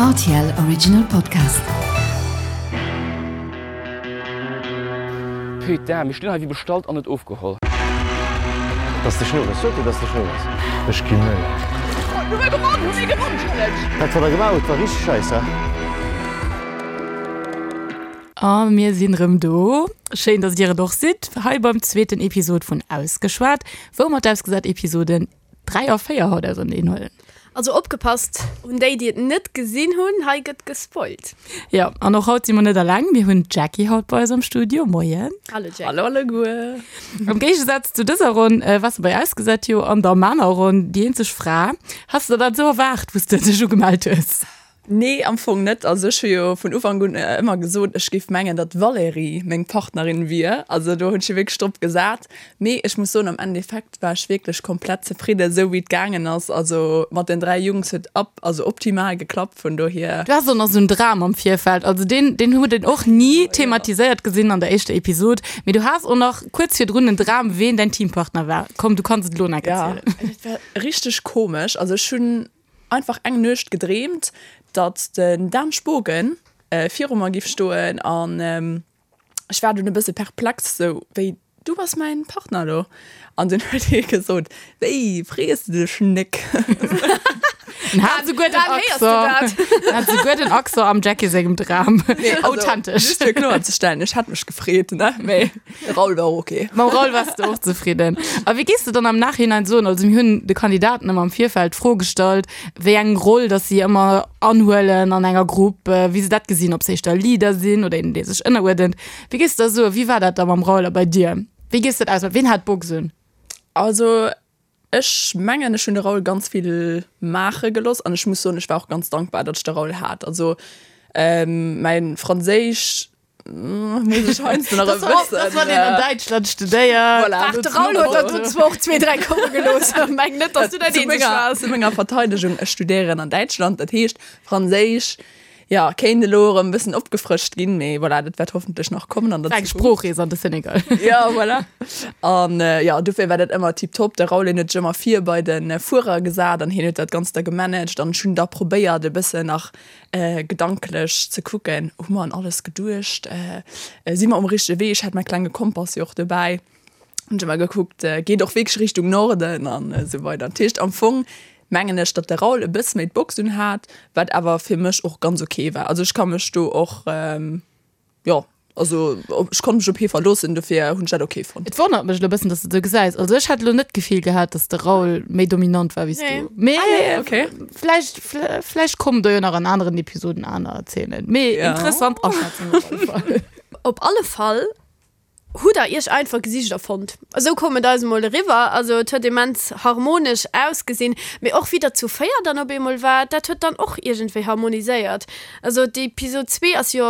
Rtl Original Podcast. Putain, mir stinn hei wéi bestallt an net ofgeholl. Dass de Schnurres, sot dir dass de Schnurres? Ech ginn méi. Hu mir gewonn, hu mir gewonn, Challenge! Dat wat der gemaach hutt war richteg scheiss, he? A mir sinn rëm do. Schéin, dass dir et och sidd, hei beim zweeten Episod vun Ausgeschwat, wou mer d'Ausgesat-Episoden 3 a 4 haut auserneen huelen. Also opgepasst un déi déi et net gesinn hunn, hei gëtt gespoilt. Jo, an och haut si mer net alleng, mir hunn d'Jackie haut bei eis am Studio. Moien. Hallo Jackie. Hallo alleguer. Am Géigesaz zu dëser Ronn waars de bei Ausgesat jo an der maner Ronn déi eenzeg Fra. Has de der dat esou erwaart, wou s de dech ugemellt hues? Nee, am Fong net. Also ech hu jo vun Ufank un ëmmer gesot, ech géif mengen, datt d'Valérie meng Partnerin wier. Also do hunn ech jo wierklech drop gesat. Mee ech muss soen, am Endeffekt war ech wierklech komplett zefridden, esou wéi et gaangen ass. Also mat den 3 Jungs huet ab, also optimal geklappt, vun dohier. Du has och nach esou en Dram am Virfeld. Also deen, deen huet een och ni thematiséiert gesinn an der éischter Episod. Mee du has och nach kuerz virdrun en Dram, ween däin Teampartner war. Komm, du kanns et elo nach erzielen. Ja, dat war richteg komesch. Also ech hunn einfach eng Nuecht gedreemt, datt den Dan Spogen viru mer giff stoen an ech war dunn e bësse perplex, sou wéi, du bass mäin Partner elo? An dunn huet hie gesot, wéi, frees de dech Nick? En hat souguer den Accent, en hat souguer den Accent am Jackie sengem Dram. Authentesch. Just fir kloer ze stellen, ech hätt mech gefreet, ne, mee. De Raoul war och ok. Mam Raoul wars de och zefridden. A wéi géifs de dann am Nachhinein soen, also mir hunn de Kandidaten ëmmer am Virfeld d'Fro gestallt, wéi eng Roll datt si ëmmer anhuelen an enger Grupp, wéi se dat gesinn, ob se éischter Leader sinn oder een, dee sech ënneruerdent. Wéi géifs de da soen, wéi war dat da mam Raoul a bei dir? Wéi géifs de dat ausmaachen? Ween hat d'Box un? Also ech mengen, ech hunn de Raoul ganz vill maache gelooss an ech muss soen, ech war och ganz dankbar, datt ech de Raoul hat. Also mäin Franséisch Muss ech heiansdo nach e bëssen. Dat wann een an Däitschland studéiert. Voilà. Ach, de Raoul huet der do zwar och zwee, dräi komme gelooss. Meng net, dass du dat eenzeg waars. Zu menger Verteidegung, ech studéieren an Däitschland, dat heescht Franséisch, jo, kéint elo erëm e bëssen opgefrëscht ginn, mee voilà, dat wäert hoffentlech nach kommen an der Eng Zukunft. Sproochrees an de Senegal. Ja, voilà. An jo, dofir war dat ëmmer tiptop. De Raoul, hien huet sech ëmmer vir bei de Fuerer gesat an hien huet dat Ganzt da gemanagt an ech hunn da probéiert e bëssen nach Gedanklech ze kucken, hu mer un alles geduecht, si mer um richtege Wee? Ech hat mäi klenge Kompass jo och dobäi, hunn ech ëmmer gekuckt, geet och wierklech Richtung Norden an esou weider. Dat heescht am Fong mengen ech, datt de Raoul e bësse méi d'Box un hat, wat awer fir mech och ganz ok war. Also ech ka mech do och. Jo, also ech konnt mech op hie verloossen, dofir hunn ech dat ok fonnt. Et wonnert mech elo e bëssen, dass du et esou gesäis. Also ech hätt elo net d'Gefill gehat, dass de Raoul méi dominant war wéi s du. Mee okay. vläicht, vläicht kommen do jo nach an aneren Episoden aner Erzielen. Mee interessant Aschätzung op alle Fall. Op alle Fall Hutt der iech einfach Gesichter fonnt? Esou koum et eis emol eriwwer. Also et huet immens harmonesch ausgesinn, mee och wéi der zu 4 dann op eemol waart, dat huet dann och iergendwéi harmoniséiert. Also d'Episod 2 ass jo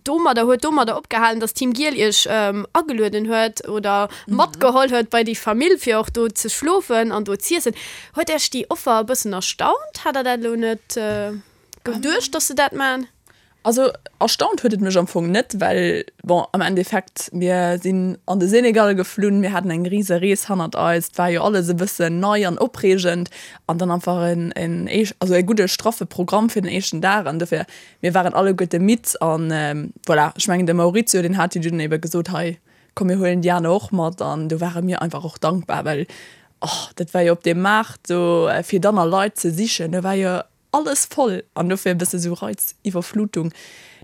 domadder, huet domadder opgehalen, dass Team Giel iech agelueden huet oder matgeholl huet bei déi Famill fir och do ze schlofen an do z'iessen. Huet iech déi Offer e bëssen erstaunt? Hat der dat elo net geduecht, dass se dat man? Also erstaunt huet et mech am Fong net, well bon am Endeffekt mir sinn an de Senegal geflunn, mir haten eng rise Rees hannert eis, et war jo alles e bëssen nei an opreegend an dann einfach en en éisch also e gudde straffe Programm fir den éischten Dag an dofir mir waren alleguerte midd an voilà. Ech mengen de Maurizio deen hat jo dunn ebe gesot, hei komm mir huelen déi aner och mat an do ware mir einfach och dankbar, well oh dat war jo op deem Maart do fir dann a Leit ze sichen, do war jo alles voll an dofir e bësse sou Reiziwwerflutung.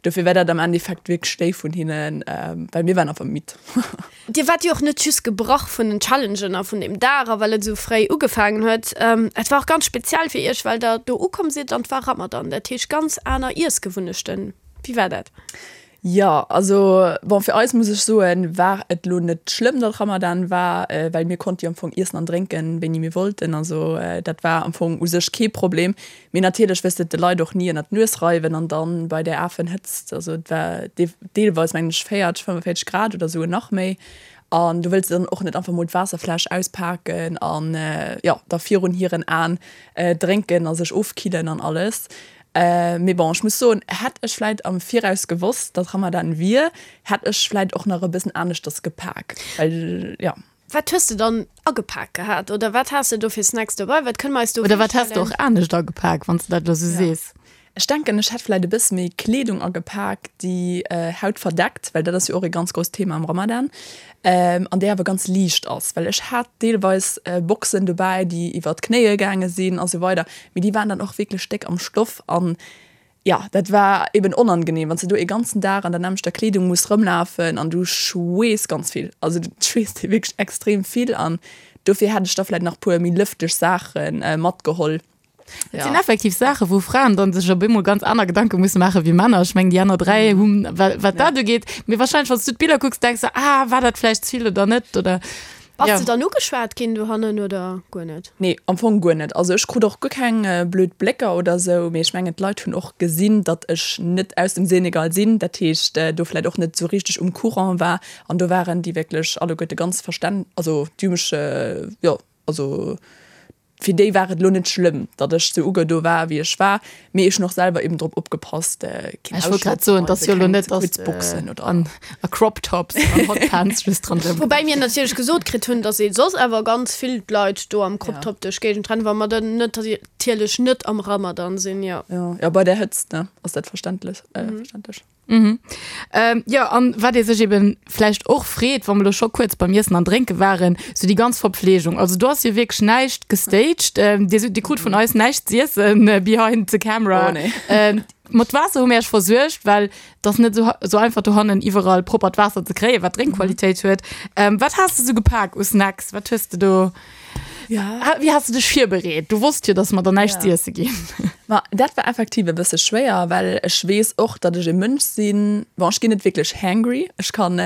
Dofir war dat am Endeffekt wierklech déif vun hinnen, well mir waren einfach midd. Dir waart jo och net just gebrach vun den Challengen a vun deem Dag a well et esou fréi ugefaangen huet. Et war och ganz speziell fir iech, well der do ukomm sidd an et war Ramadan, dat heescht ganz aner Iessgewunnechten. Wéi war dat? Jo, also bon, fir eis muss ech soen, war et lo net schlëmm, datt Ramadan war, well mir konnte jo am Fong iessen an drénken, wéini mir wollten. Also dat war am Fong u sech kee Problem. Mee natierlech wëlls de et de Leit och ni ënnert d'Nues reiwen an dann bei där Afenhëtzt, also et war deelweis mengen ech 40, 45 Grad oder esou nach méi, an du wëlls dann och net einfach mol d'Waasserfläsch auspaken an jo da virun hiren Aen drénken a sech ofkillen an alles. Mee bon, ech muss soen, hätt ech vläit am Viraus gewosst, datt Ramadan wier, hätt ech vläit och nach e bëssen aneschters gepak, well jo. Wat hues de dann agepak gehat oder wat has de do fir Snacks dobei? Wat kënne mer eis do Oder wat häss de virstellen? och anescht agepak, wann s de dat elo sou sees? Ech denken, ech hätt vläit e bësse méi Kleedung agepak, déi Haut verdeckt, well dat ass jo och e ganz grousst Thema am Ramadan, an déi awer ganz liicht ass. Well ech hat deelweis Boxen dobäi, déi iwwer d'Knéie gaange sinn a sou weider, mee déi waren dann och wierklech déck am Stoff an jo, dat war eben onangenehm, wann s de do ee ganzen Dag an der nämmlechter Kleedung muss rëmlafen an du schweess ganz vill. Also du schweesst wierklech extrem vill an dofir hätt ech da vläit nach puer méi lëfteg Saache matgeholl. Et sinn effektiv Saachen, wou Fraen dann sech op eemol ganz aner Gedanke musse maache wéi Männer. Ech mengen, déi aner 3 hunn, wat, wat dat ugeet. Mee wahrscheinlech, wann s du d'Biller kucks, denks de, ah, war dat vläicht ze vill oder net oder. Bass ja. de dann ugeschwat ginn dohannen oder guer net? Nee, am Fong guer net. Also ech krut och guer keng blöd Blécker oder sou, mee ech mengen d'Leit hunn och gesinn, datt ech net aus dem Senegal sinn, dat heescht do vläicht och net sou richteg um Courant war. An do waren déi wierklech alleguerte ganz verstän-, also déi hu mech, jo, also Fir déi war et elo net schlëmm, datt ech sou ugedo war, wéi ech war, mee ech hunn och selwer eben drop opgepasst, keen Ech wollt grad soen, et ass jo elo net, dass kuerz Boxen oder. An a Crop Tops an Hot Pants just dran rëm. Woubäi mir natierlech gesot kritt hunn, datt ee soss awer ganz vill Leit do am Crop Top duerch d'Géigend rennen, wa mer dann net natierlech net am Ramadan sinn, jo. Jo, jo, bei där Hëtzt, ne, ass dat verständlech, verständlech. Mhm. Ähm, jo, an wat ee sech eben vläicht och freet, wa mer elo scho kuerz beim Iessen an Drénke waren, sou déi ganz Verpflegung. Also do ass jo wierklech näischt gestaged. Ähm, dir, dir krut vun eis näischt z'iessen äh, behind the camera. Oh, nee. Ähm, mat Waasser hu mir iech versuergt, well et ass net sou, sou einfach dohannen iwwerall proppert Waasser ze kréien, wat Drénkqualitéit huet. Ähm, wat has de sou gepak u Snacks? Wat hues de do? Ja. Wéi has de dech virbereet? Du wosst jo, dass mer der näischt Ja. z'iesse ginn. Ma dat war effektiv e bësse schwéier, well ech weess och, datt ech e Mënsch sinn, bon, ech ginn net wierklech hangry, ech kann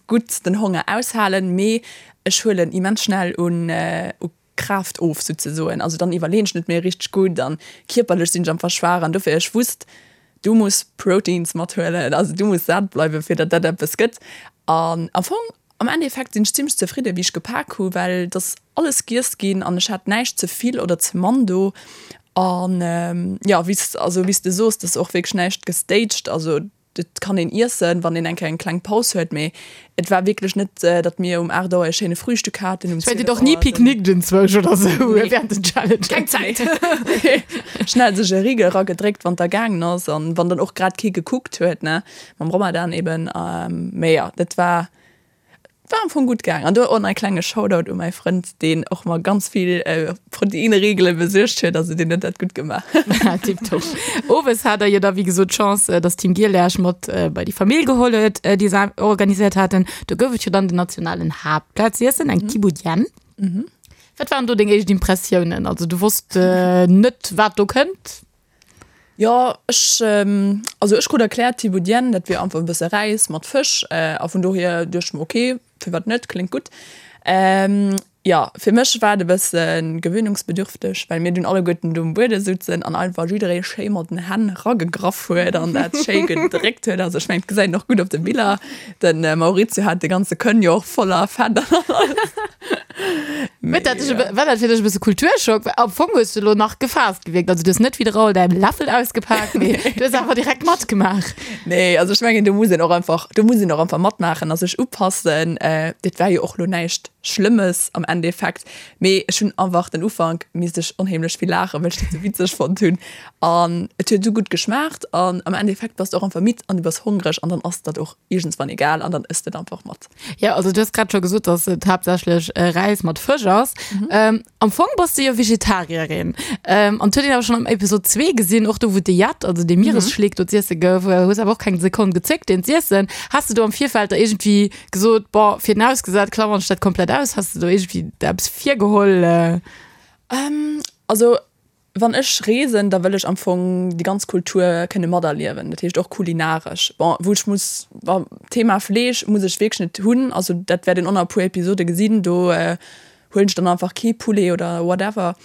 gutt den Honger aushalen, mee ech huelen immens schnell un u Kraaft of souzesoen. Also dann iwwerleeën ech net méi richteg gutt an kierperlech sinn ech einfach schwaach an dofir ech wusst, du muss Proteins mathuelen, also du muss sat bleiwen, fir datt dat eppes gëtt. An am Fong Am Endeffekt sinn ech zimmlech zefridde wéi ech gepak hu well et ass alles giess ginn an ech hat näischt ze vill oder ze mann do. An jo wéi s also wéi s de soos, et ass och wierklech näischt gestaged, also et kann een iessen wann een eng Kéier eng kleng Paus huet, mee et war wierklech net datt mir um 8 Auer e schéine Frühstück haten, um Ech well 12 Dir och ni Auer. picknickt enzwousch oder sou Nee. während den Challenges. Keng Zäit. Schnell sech e Rigel eragedréckt wann et da gaangen ass an wann dann och grad kee gekuckt huet ne. Mam Ramadan eben. Mee jo, dat war, war am Fong gutt gaang. An do och nach e klenge Shoutout u mäi Frënd, deen och mer ganz vill Proteinriegele besuergt huet. Also deen huet dat gutt gemaach. Tiptop. Owes hat der jo da wéi gesot d'Chance, dass Team Giel Iech mat bei déi Famill geholl huet, déi se organiséiert haten. Do gouf et jo dann den nationalen Haaptplat z'iessen, eng Thieboudienne. Wat waren do deng éischt Impressiounen? Also du wosst net, wat do kënnt? Jo, ech, also ech krut erkläert, Thieboudienne, dat wier einfach e bësse Räis mat Fësch a vun dohier duecht ech mer, ok, firwat net, kléngt gutt. Jo, fir mech war et e bësse gewöhnungsbedürfteg, well mir dunn alleguerten do um Buede souzen an einfach jidderee schéi mat den Hänn ragegraff huet an dat schéi gedréckt huet. Also ech mengen, et gesäit een och gutt op de Biller. De Maurizio hat de ganze Kënn jo och voller Fett an alles. Huet dat dech e bë-, war dat fir dech e bësse Kulturschock? Well am Fong hues du elo nach gefaasst gewierkt. Also du hues net wéi de Raoul däin Läffel ausgepaakt, mee du hues awer direkt matgemaach. Nee, also ech mengen, do muss een och einfach, do muss een och einfach matmaachen a sech upassen. Dat war jo och elo näischt Schlëmmes am Endeffekt, mee ech hunn einfach den Ufank misst ech onheemlech vill laachen, well ech dat sou witzeg fonnt hunn. An et huet esou gutt geschmaacht an am Endeffekt bass de och einfach midd an du bass hongreg an dann ass dat och iergendswann egal an dann ëss de et einfach mat. Jo, also du hues grad scho gesot, dass et haaptsächlech Räis mat Fësch ass. Am Fong bass du jo Vegetarierin. An et huet een awer schonn am Episod 2 gesinn, och do wou de Yacht, also dee Mieresschleek do z'iesse gouf, hues awer och keng Sekonn gezéckt deen z'iessen. Has de do am Virfeld da iergendwéi gesot, bon, fir den ausgesat klammern ech dat komplett aus? Has de do iergendwéi der eppes virgeholl? Also Wann ech reesen, da wëll ech am Fong déi ganz Kultur kënne materliewen, dat heescht och kulinaresch. Bon, wou ech muss, bon, Thema Fleesch muss ech wierklech net hunn, also dat wäert een och nach e puer Episode gesinn, do huelen ech dann einfach kee Poulet oder whatever.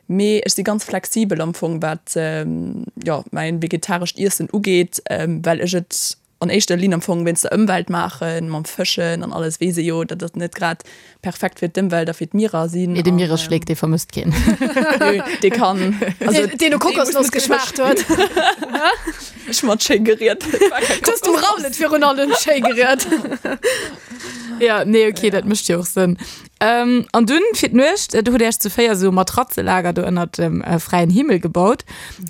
Mee ech si ganz flexibel am Fong, wat, jo, mäin vegetarescht Iessen ugeet, well ech et an éischter Linn am Fong wéinst der Ëmwelt maachen, mam Fëschen an alles, weess ee jo, datt dat net grad perfekt fir d'Ëmwelt a fir d'Mierer sinn. Mee de Mieresschléck, dee vermësst keen. Nö, dee kann, also deen no Kokosnoss geschmaacht huet. Ech mat schéi geriet. Du hues dem Raoul et virun allem schéi geriet. Ja, nee, okay, dat mécht jo och Sënn. Ähm, an dunn fir d'Nuecht, do hutt Dir Iech zu 4 esou e Matratzelager do ënnert dem äh, fräien Himmel gebaut.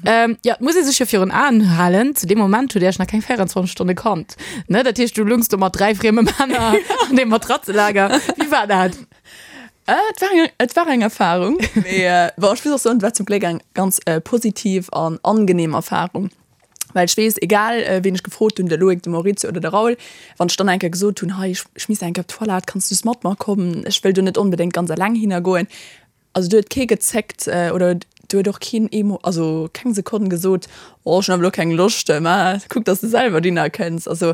Ähm, ja, et muss ee sech jo virun Aen halen, zu deem Moment hutt Dir Iech nach keng 24 Stonne kannt. Ne? Dat heescht, du lungs do mat 3 frieme Männer an deem Matratzelager. Wéi war dat? Äh, et war eng, et war eng Erfahrung. Mee äh, bon, ech muss och soen, et war zum Gléck eng ganz äh, positiv an angenehm Erfahrung. Well ech weess, egal ween ech gefrot hunn, de Loïc, de Maurizio oder de Raoul, wann ech dann eng Kéier gesot hunn, hei ech misst eng Kéier op d'Toilette, kanns du s mat mer kommen, ech wëll do net onbedéngt ganz eleng hinner goen. Also do huet kee gezéckt oder do huet och keen ee Mo, also keng Sekonn gesot, oh ech hunn awer elo keng Loscht, mä kuck dass de selwer dohinner kënns. Also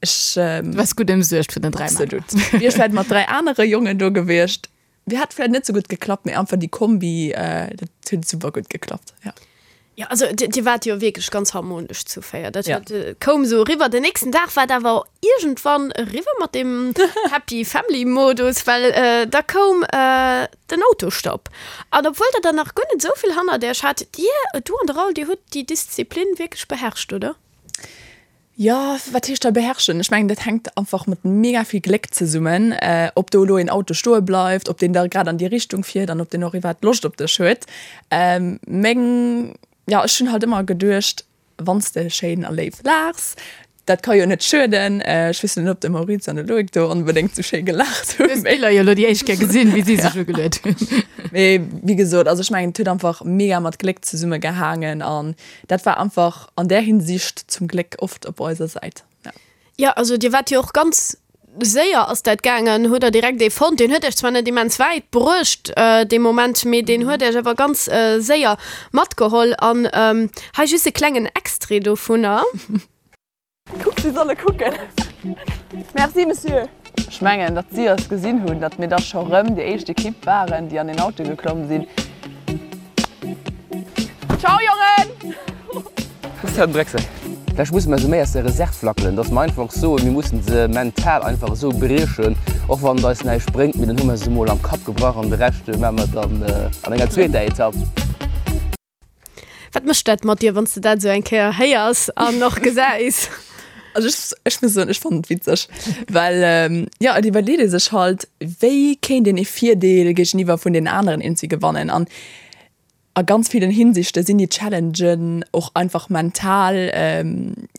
ech. Du waars gutt ëmsuergt vun den 3 Männer. Absolut. Wier ech vläicht mat 3 anere Jongen do gewiescht, Mir hat vläit net sou gutt geklappt, mee einfach déi Kombi, dat huet super gutt geklappt, ja. Jo, also dir waart jo wierklech ganz harmonesch zu 4, dat huet, koum sou eriwwer. Den nächsten Dag war et awer iergendwann eriwwer mat deem Happy Family Modus, well da koum den Autostopp. An obwuel der dann nach guer net esou vill hannert iech hat, dir, du an de Raoul, dir hutt déi Disziplin wierklech beherrscht, oder? Jo, wat heescht da beherrschen? Ech mengen, dat hänkt einfach mat mega vill Gléck zesummen, ob do elo een Auto stoe bleift, ob deen da grad an déi Richtung fiert an ob deen och iwwerhaapt Loscht op dech huet. Meng, jo, ech hunn halt ëmmer geduecht, wann s de schéin a léif laachs, dat ka jo net schueden. Ech weess net, ob de Maurizio an de Loïc do onbedéngt sou schéi gelaacht hunn. Du hues d'Biller jo elo déi éischt Kéier gesinn, wéi si sech ugeluet hunn. Mee wéi gesot, also ech mengen, et huet einfach mega mat Gléck zesummegehaangen an dat war einfach an där Hinsicht zum Gléck oft op eiser Säit. Ja. Jo, also dir waart jo och ganz séier ass dat gaangen, hutt der direkt ee fonnt. Deen huet iech zwar net immens wäit bruecht dee Moment, mee deen huet iech awer ganz séier matgeholl. An hei just e klengen Extrait dovunner. Kuck, si solle kucken. Merci, Monsieur. Ech mengen, datt si eis gesinn hunn, datt mir da scho rëm déi éischt Ekipp waren, déi an den Auto geklomm sinn. Ciao, Jongen! Christian Drechsel, Vläicht musse mer se méi aus der Reserv lackelen, datt mer einfach soen, mir mussen se mental einfach esou briechen, och wann et eis näischt bréngt, mee dann hu mer se emol am Kapp gebrach an de Rescht maache mer dann an enger zweeter Etapp. Wat mécht dat mat dir, wann s de dat esou eng Kéier héiers an och gesäis? Also ech, ech muss soen, ech fannen et witzeg, well jo, et iwwerleet ee sech halt, wéi kéint een ee Virdeel géigeniwwer vun den aneren eenzi gewannen. An a ganz villen Hinsichte sinn déi Challengen och einfach mental,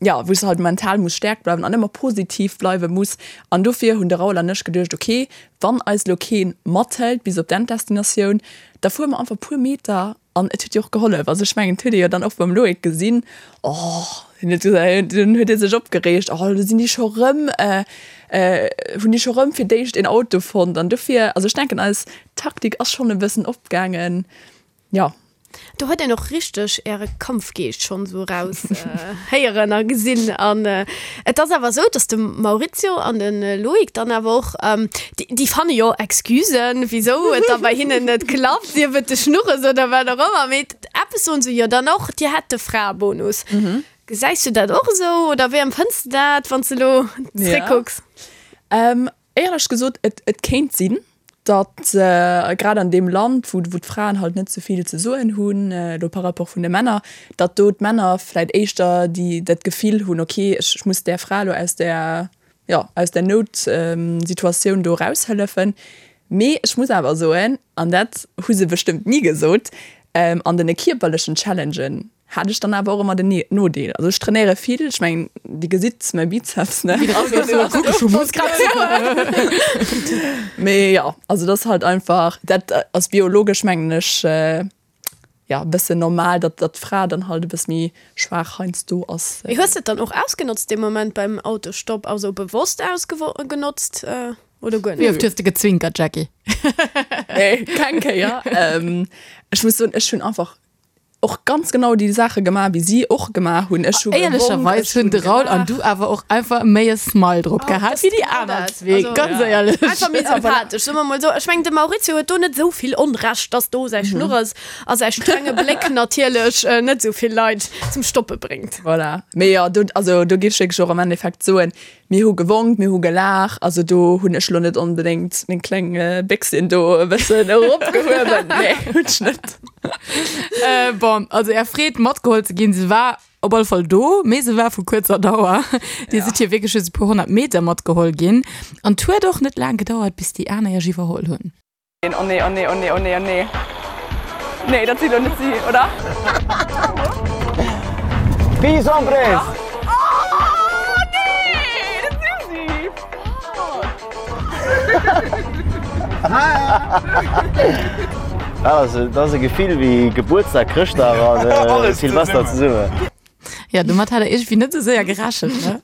jo, wou s de halt mental muss staark bleiwen an ëmmer positiv bleiwe muss. An dofir hunn de Raoul an ech geduecht, okay, wann eis elo kee mathëlt bis op d'Enddestinatioun, da fuere mer einfach e puer Meter An et huet jo och gehollef. Also ech mengen, et huet ee jo dann och beim Loïc gesinn, oh, hien huet gesot, dunn huet hie sech opgereegt, oh, elo sinn déi scho rëm, hunn déi scho rëm fir d'éischt een Auto fonnt. An dofir, also ech denken, eis Taktik ass schonn e bëssen opgaangen, jo. Do huet een och richteg äre Kampfgeescht schonn esou eraus héieren a gesinn. An et ass awer esou, datt de Maurizio an de Loïc dann awer och, déi fanne jo Excusen, wisou et da bei hinnen net klappt, sief et de Schnurres oder wat och ëmmer, mee eppes soen se jo dann och, Dir hätt de Fraebonus. Gesäis du dat och esou oder wéi empfënns de dat, wann s de elo zréckkucks? Éierlech gesot, et kéint sinn, datt grad an deem Land, wou d'Fraen halt net sou vill ze soen hunn, elo par rapport vun de Männer, datt do d'Männer vläit éischter déi dat Gefill hunn, okay, ech muss där Fra elo aus där, jo, aus där Noutsituatioun do eraushëllefen. Mee ech muss awer soen, an dat hu se bestëmmt ni gesot, an den kierperlechen Challengen hat ech dann awer och ëmmer den Nodeel. Also ech trainéiere vill, ech mengen Dir gesitt mäi Bizeps, ne? Mee jo, also dat ass halt einfach, dat ass biologesch mengen ech, jo e bëssen normal, datt datt d'Fra dann halt e bësse méi schwaach heiansdo ass. Mee hues de et dann och ausgenotzt dee Moment beim Autostopp, also bewosst ausgenotzt oder guer net? Wéi oft hues de gezwinkert, Jackie? Nee, keng Kéier. Ech muss soen, ech hunn einfach och ganz genau déi Saache gemaach, wéi si och gemaach hunn. Ech hu gewonk, Éierlecherweis ech hunn hunn de Raoul an gelaach. du awer och einfach méi e Smile drop gehat wéi déi aner zwee, ganz éierlech. Einfach méi sympathesch, soe mer mol esou. Ech mengen, de Maurizio huet do net esou vill Onrecht, dass do säi Schnurres a säi strenge Bléck natierlech net esou vill Leit zum Stoppe bréngt. Voilà. Mee jo, do, also do géif ech wierklech och am Endeffekt soen, mir hu gewonk, mir hu gelaach. Also do hunn ech elo net onbedéngt meng kleng Béchsin do e bëssen eropgehuewen. Nee, hunn ech net. Bon, also är Freed matgeholl ze ginn, se war op alle Fall do, mee se war vu kuerzer Dauer. Dir sidd jo wierklech just e puer 100 Meter matgeholl ginn. An 't huet och net laang gedauert, bis déi aner iech iwwerholl hunn. Oh nee, oh nee, oh nee, oh nee, oh nee. Nee, dat si lo net si, oder? Peace hombres! Oh nee, dat si si! Fuck! Dat ass e Gefill wéi Gebuertsdag, Chrëschtdag an Silvester zesummen. Ja, domat hat der iergendwéi net esou séier gerechent, ne?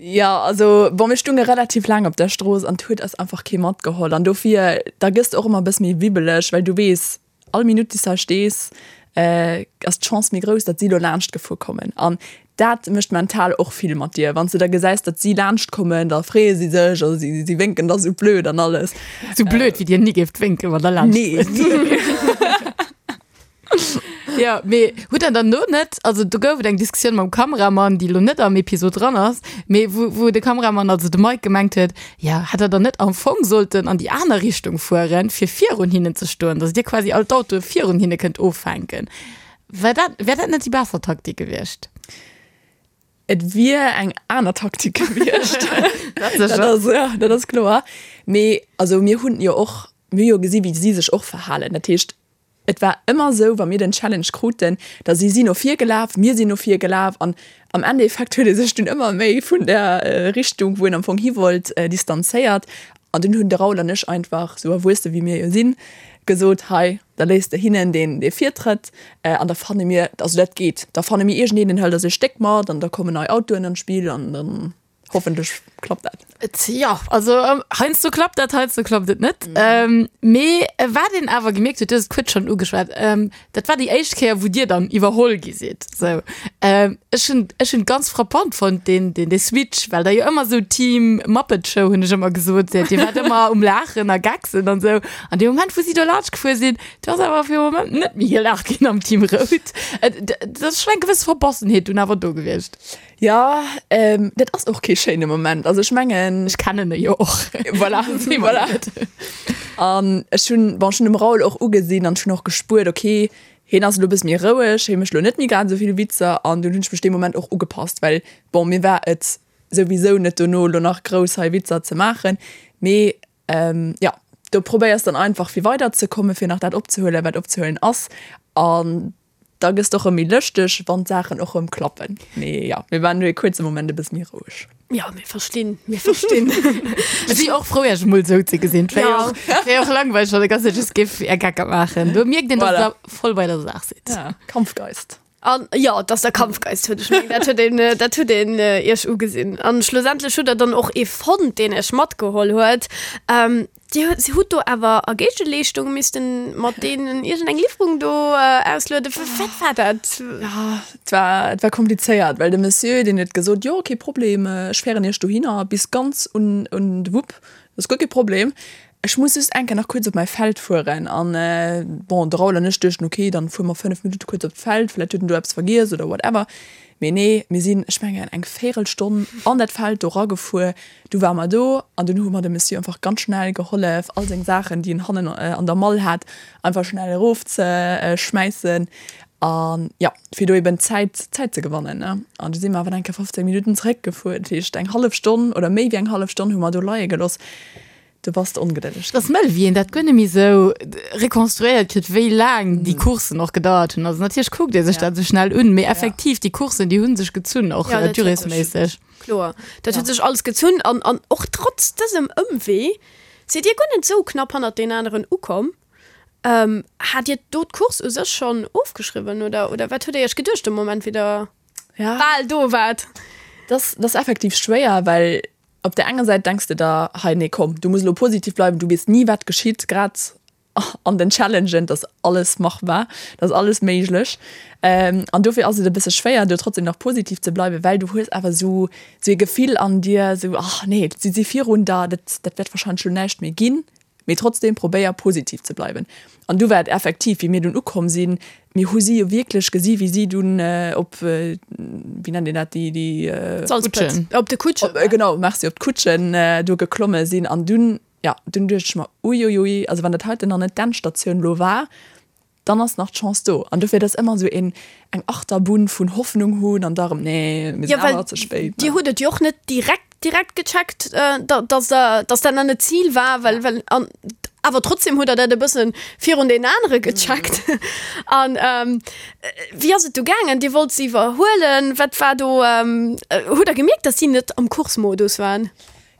Jo, also bon, mir stunge relativ laang op der Strooss an 't huet eis einfach kee matgeholl. An dofir, da gëss de och ëmmer e bësse méi wibbeleg, well du weess, all Minutt, déi s de hei stees, ass d'Chance méi grouss, datt si lo laanscht gefuer kommen. An dat mécht mental och vill mat dir. Wann s de da gesäis, datt si laanscht kommen, da freeë si sech a si si wénken da sou blöd an alles. Sou blöd, wéi dir ni géift wénken, wann der laanscht Nee, fuert. Jo, mee hutt der dann do net, also do gouf et eng Diskussioun mam Kameramann, déi elo net am Episod dran ass, mee wou, wou de Kameramann, also de Mike gemengt huet, jo, hätt der dann net am Fong sollten an déi aner Richtung fueren, fir virun hinnen ze stoen, datt dir quasi all d'Autoe virun hinne kënnt offänken. War dat, wär dat net déi besser Taktik gewiescht? Et wier eng aner Taktik gewiescht. Dat ass, ja, dat ass kloer. Mee also mir hunn jo och, mir hu jo gesi wéi si sech och verhalen. Dat heescht, Et war ëmmer esou, wa mir den Challenge kruten, da si si no vir gelaf, mir sinn no vir gelaf an am Endeffekt huet ee sech dunn ëmmer méi vun der Richtung, wou een am Fong hi wollt, distanzéiert. An dunn hunn de Raoul an ech einfach, esou erwuesse wéi mir jo sinn, gesot, Hei, da léisst de hinnen deen dee Virtrëtt an da fanne mir, also dat geet, da fanne mir iergendeen, deen hëlt eis e Stéck mat an da kommen nei Autoen an d'Spill an dann. Hoffentlech klappt dat. Jo, also heiansdo klappt dat, heiansdo klappt et net. Mee wat een awer gemierkt huet, du hues et kuerz schonn ugeschwat, dat war déi éischt Kéier, wou Dir dann iwwerholl gi sidd. Sou, ech hunn, ech hunn ganz frappant fonnt deen, deen, dee Switch, well Der jo ëmmer esou Team Muppet Show, hunn ech ëmmer gesot, Dir waart ëmmer um Laachen a Gacksen an esou. An dee Moment, wou si do laanscht gefuer sinn, do ass awer fir e Moment net méi gelaacht ginn am Team Rout. Et ass schonn eng gewëss Verbossenheet dunn awer do gewiescht. Jo, dat ass och kee schéine Moment. Also ech mengen. Ech kennen e jo och. Voilà, voilà. An ech hunn, bon, ech hunn dem Raoul och ugesinn an ech hunn och gespuert, okay, hien ass elo e bësse méi roueg, hie mécht elo net méi grad esou vill Witzer. An dunn hunn ech mech dee Moment och ugepasst, well, bon, mir war et souwisou net dono elo nach grouss hei Witzer ze maachen. Mee jo, do probéiers dann einfach fir weiderzekommen, fir nach dat opzehuelen, wat opzehuelen ass. An Da gëss de och rëm méi lëschteg, wann d'Saachen och rëm klappen. Mee jo, mir waren do ee kuerze Moment e bësse méi roueg. Jo, mir verstinn, mir verstinn. Ech si och frou, Iech emol esou ze gesinn. Et wär jo och, wär jo och langweileg, wann der ganz Zäit just géif Är Gecker maachen. Do mierkt een, dass Voilà. Der voll bei der Saach sidd. Ja, Kampfgeist. An jo, dass der Kampfgeist huet, ech mengen, dat huet een, dat huet een Iech ugesinn. An schlussendlech hutt Der dann och ee fonnt, deen Iech matgeholl huet. Dir hutt do awer a Géigeleeschtung missten mat deenen iergendeng Liwwerung do auslueden. Wat war dat? Ja, et war, et war komplizéiert, well de Monsieur, deen huet gesot, jo, kee Problem, ech féieren Iech dohinner bis ganz un, un de Wupp, dat ass guer kee Problem. Ech muss just eng Kéier nach kuerz op mäi Feld fueren. An, bon, de Raoul an ech duechten, okay, dann fuere mer 5 Minutte kuerz op d'Feld, vläicht huet en do eppes vergiess oder whatever. Mee nee, mir sinn, ech mengen, eng Véirelstonn an dat Feld do ragefuer. Du ware mer do an dunn hu mer dem Monsieur einfach ganz schnell gehollef, all seng Saachen, déi en hannen an der Mall hat, einfach schnell erof ze schmäissen an jo, fir do eben Zäit, Zäit ze gewannen, ne. An du si mer awer eng Kéier 15 Minutten zeréckgefuer, dat heescht eng hallef Stonn oder méi wéi eng hallef Stonn hu mer do leie gelooss. Du bass ongedëlleg. Et ass mëll, wéi een dat guer net méi esou rekonstruéiert kritt, wéi laang déi Courssen och gedauert hunn. Also natierlech kuckt ee sech dat esou schnell un, mee effektiv, déi Courssen, déi hu sech gezunn, och durésméisseg. Kloer, dat huet sech alles gezunn an an och trotz dësem Ëmwee sidd Dir guer net esou knapp hannert deen aneren ukomm. Hat Dir do d'Course u sech schonn ofgeschriwwen oder oder wat hutt Dir Iech geduecht de Moment, wéi Der bal do waart? Dat ass effektiv schwéier, well op där enger Säit denks de der, hei nee komm, du muss elo positiv bleiwen, du weess ni wat geschitt, grad an den Challengen, dass alles machbar, dass alles méiglech. An dofir ass et e bësse schwéier, do trotzdem nach positiv ze bleiwen, well du hues awer esou esou ee Gefill an dir, esou, ach nee, si si virun der, dat dat wäert wahrscheinlech elo näischt méi ginn. Mee trotzdem probéier positiv ze bleiwen. An du war et effektiv, wéi mir dunn ukomm sinn, mir hu si jo wierklech gesi wéi si dunn op, wéi nennt een dat, déi, déi Kutschen, op de Kutschen, genau, merci, op d'Kutschen do geklomme sinn. An dunn, Jo, dunn duecht ech mer, uiuiui, also wann dat heiten nach net d'Endstatioun lo war. Dann ass nach d'Chance do. An dofir, et ass ëmmer esou een, eng Achterbunn vun Hoffnung hunn an da erëm, nee, mir Ja, sinn well awer ze spéit. Dir hutt et jo och net direkt, direkt gecheckt, dass der, dass dat nach net d'Zil war, well, well, an awer trotzdem hutt der dat e bëssen virun deenen anere gecheckt. An wéi ass et du gaangen? Dir wollt se iwwerhuelen. Wat war do, hutt der gemierkt, dass si net am Coursemodus waren?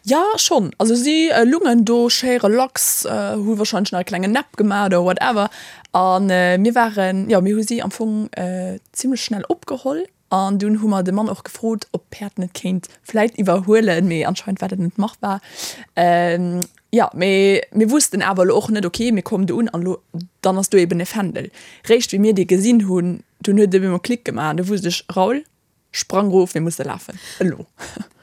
Jo, schonn. Also si lungen do schéi relax, hu wahrscheinlech nach e klengen Nap gemaach oder whatever. A mir waren, jo, mir hu si am Fong zimlech schnell opgeholl. An dunn hu mer de Mann och gefrot, ob d'Päerd net kéint vläit iwwerhuelen, mee anscheinend war dat net machbar. Jo, mee mir wussten awer elo och net, ok, mir kommen do un an elo, dann ass do eben e Fändel. Réischt wéi mir dee gesinn hunn, dunn huet et op eemol Klick gemaach an du wusst ech, Raoul, Sprang rof, mir musse lafen, elo!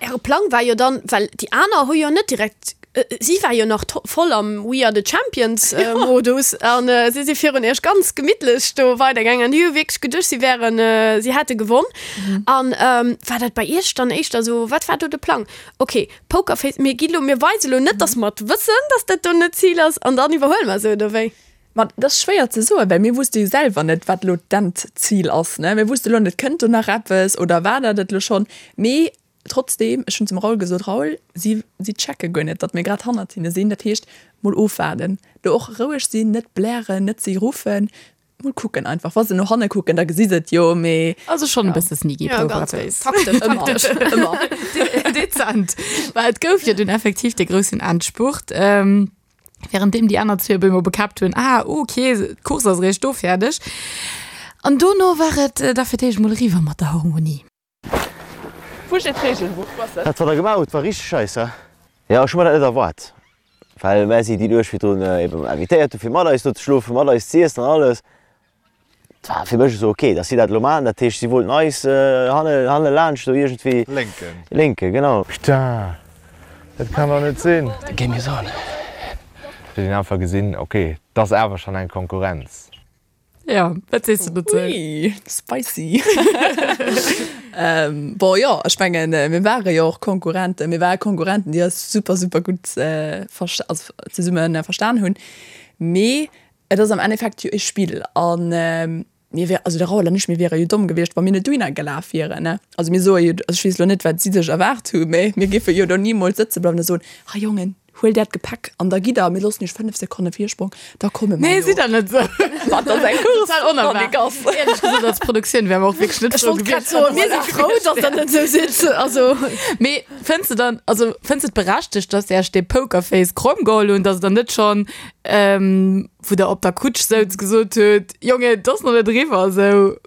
Äre Plang war jo dann, well déi aner hu jo net direkt, si war jo nach voll am We are the Champions Modus an si si virun iech ganz gemittlech do weidergaangen an déi hu wierklech geduecht, si wären, si hätte gewonn. An war dat bei iech dann éischter esou, wat war do de Plang? Ok, Pokerface, mir gi lo, mir weise lo net, datt mer et wëssen, datt dat do net d'Zil ass an dann iwwerhuele mer se, oder wéi? Ma dat ass schwéier ze soen, well mir wusste jo selwer net, wat elo d'Endzil ass. Ne? Mir wusste elo net, kënnt do nach eppes oder war dat et elo schonn? Mee trotzdeem, ech hunn zum Raoul gesot, Raoul, si, si checke guer net, datt mir grad hannert hinne sinn. Dat heescht, mol ofwaarden, do och roueg sinn, net blären, net si ruffen, mol kucken einfach. Wa se no hanne kucken, da gesi se et jo, mee. Also schonn e bësse sneaky Ja, ganz Pokerface. taktesch, Ëmmer, taktesch. ëmmer. Dezent. Well et gouf jo dunn effektiv dee groussen Endspurt. Währenddeem déi aner zwee op eemol bekäppt hunn, ah, ok, d'Course ass eréischt do fäerdeg. An dono war et da fir d'éischt mol eriwwer mat der Harmonie. Wou steet d'Regelbuch? Wou ass dat? Dat wat der gemaach hutt war richteg scheiss, he? Jo, ech hu mer dat net erwaart, well mär si déi Nuecht virdrun eben invitéiert hu fir mat eis do ze schlofen, mat eis z'iessen an alles. Et war fir mech esou ok, dass si dat elo maachen. Dat heescht, si wollten eis hanne hanne laanscht do iergendwéi. Lénken. Lénken, genau. Putain, dat kann dach net sinn. The game is on. Huet een einfach gesinn, ok, et ass awer schonn eng Konkurrenz. Jo, wat sees de dozou? Ui, spicy. Bon, jo, ech mengen, mir ware jo och Konkurrenten. Mir ware Konkurrenten, déi eis super, super gutt also zesumme verstan hunn. Mee Et ass am Endeffekt jo e Spill an mir wär, also de Raoul an ech, mir wiere jo domm gewiescht, wa mir net dohinner gelaf wieren, ne. Also mir soe jo, also ech weess elo net, wat si sech erwaart hu, mä mir géife jo do nimools sëtze bleiwen a soen, Ha Jongen, huelt äert Gepäck an da gitt der, mir loossen iech 5 Sekonne Virsprong, da komme mer Nee, no. sidd der net esou. Ma et ass eng Course, Total onerwaart. Wann ee Gass. Éierlech gesot, als Produktioun wäre mer och wierklech net Ech frou wollt grad gewiescht, soen, mir si frou, datt der net esou sidd. Also. Mee fënns de dann, also fënns de et berechtegt, datt se iech dee Pokerface kromm geholl hunn, datt der net schonn Ähm, wou der op der Kutsch souz gesot huet, Jongen, et ass nach net eriwwer, esou.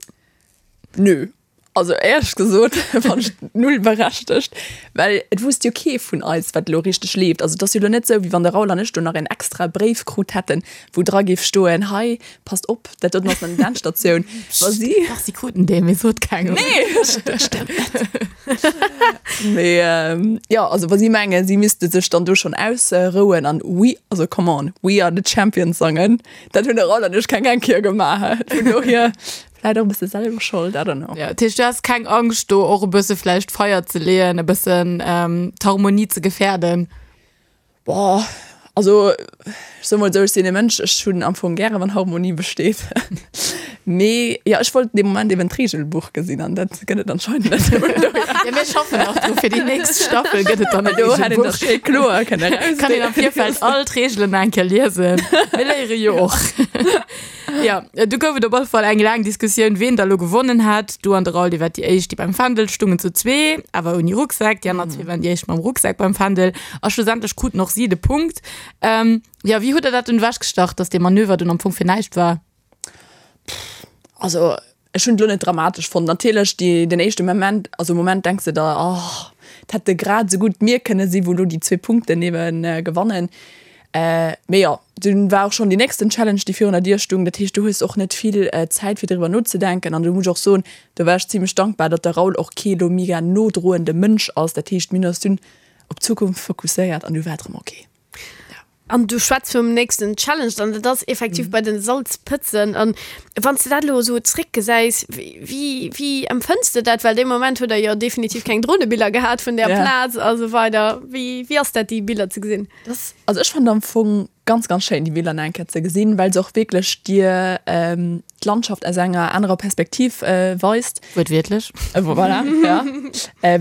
Nö. Also éierlech gesot fann ech et null berechtegt, well et wusst jo kee vun eis, wat elo richteg leeft. Also et ass jo elo net esou, wéi wann de Raoul an ech do nach een extra Bréif krut hätten, wou dra géif stoen, hei, passt op, dat doten ass nach net d'Endstatioun. Wa si. Dach, si kruten dee, mee sot kengem. Nee, dat stëmmt net. Mee jo, also wa si mengen, si misste sech dann do schonn ausrouen an we, also come on, we are the champions sangen, dat hunn de Raoul an ech keng eng Kéier gemaach. Vun dohier vläit och e bësse selwer Schold, I don't know. Ja, dat heescht, du has keng Angscht do och e bësse vläicht Feier ze leeën, e bëssen d'Harmonie ze gefäerden? Boah, also ech soe mol esou, ech sinn e Mënsch, ech hunn am Fong gäre wann Harmonie besteet. Mee jo, ech wollt dee Moment eben d'Reegelbuch gesinn an dat gëtt et anscheinend net. Ja, mir schaffen nach dru fir déi nächst Staffel gëtt et dann e Do hätt een Reegelbuch. dat schéi kloer kënne Kann een am Virfeld all d'Reegelen nach eng Kéier liesen. Mir léiere jo och. Ja, du gouf et op alle Fall eng laang Diskussioun, ween da lo gewonnen hat. Du an de Raoul, dir waart déi éischt, déi beim Fändel stungen zu zwee, awer ouni Rucksak. Déi aner zwee waren déi éischt mam Rucksak beim Fändel. A schlussendlech kruten och si de Punkt. Ähm, ja, wéi hutt der dat dunn ewechgestach, dass dee Manöver dunn am Fong fir näischt war? Also ech hunn et lo net dramatesch fonnt. Natierlech déi den éischte Moment, also Moment denks de der, oh, et hätte grad esou gutt mir kënne si wou lo déi zwee Punkten ebe gewannen. Mee jo, dunn war och schonn déi nächsten Challenge déi virun der Dier stung. Dat heescht du hues och net vill Zäit fir driwwer nozedenken. An do muss ech och soen, do war ech zimlech dankbar, datt de Raoul och kee lo mega nodroende Mënsch ass. Dat heescht mir hunn eis dunn op d'Zukunft fokusséiert an du war et erëm ok. An du schwätz vum nächsten Challenge an dat ass effektiv bei den Salzpëtzen. An wann s de dat elo esou zréckgesäis, wéi, wéi empfënns de dat? Well dee Moment hutt der jo definitiv keng Dronebiller gehat vun där Ja. Plaz a sou weider. Wéi, wéi ass dat, déi Biller ze gesinn? Das, also ech fand am Fong. ganz, ganz schéin, déi Biller nach eng Kéier ze gesinn, well se och wierklech dir d'Landschaft aus enger anerer Perspektiv weist. Wuertwiertlech. Voilà, ja.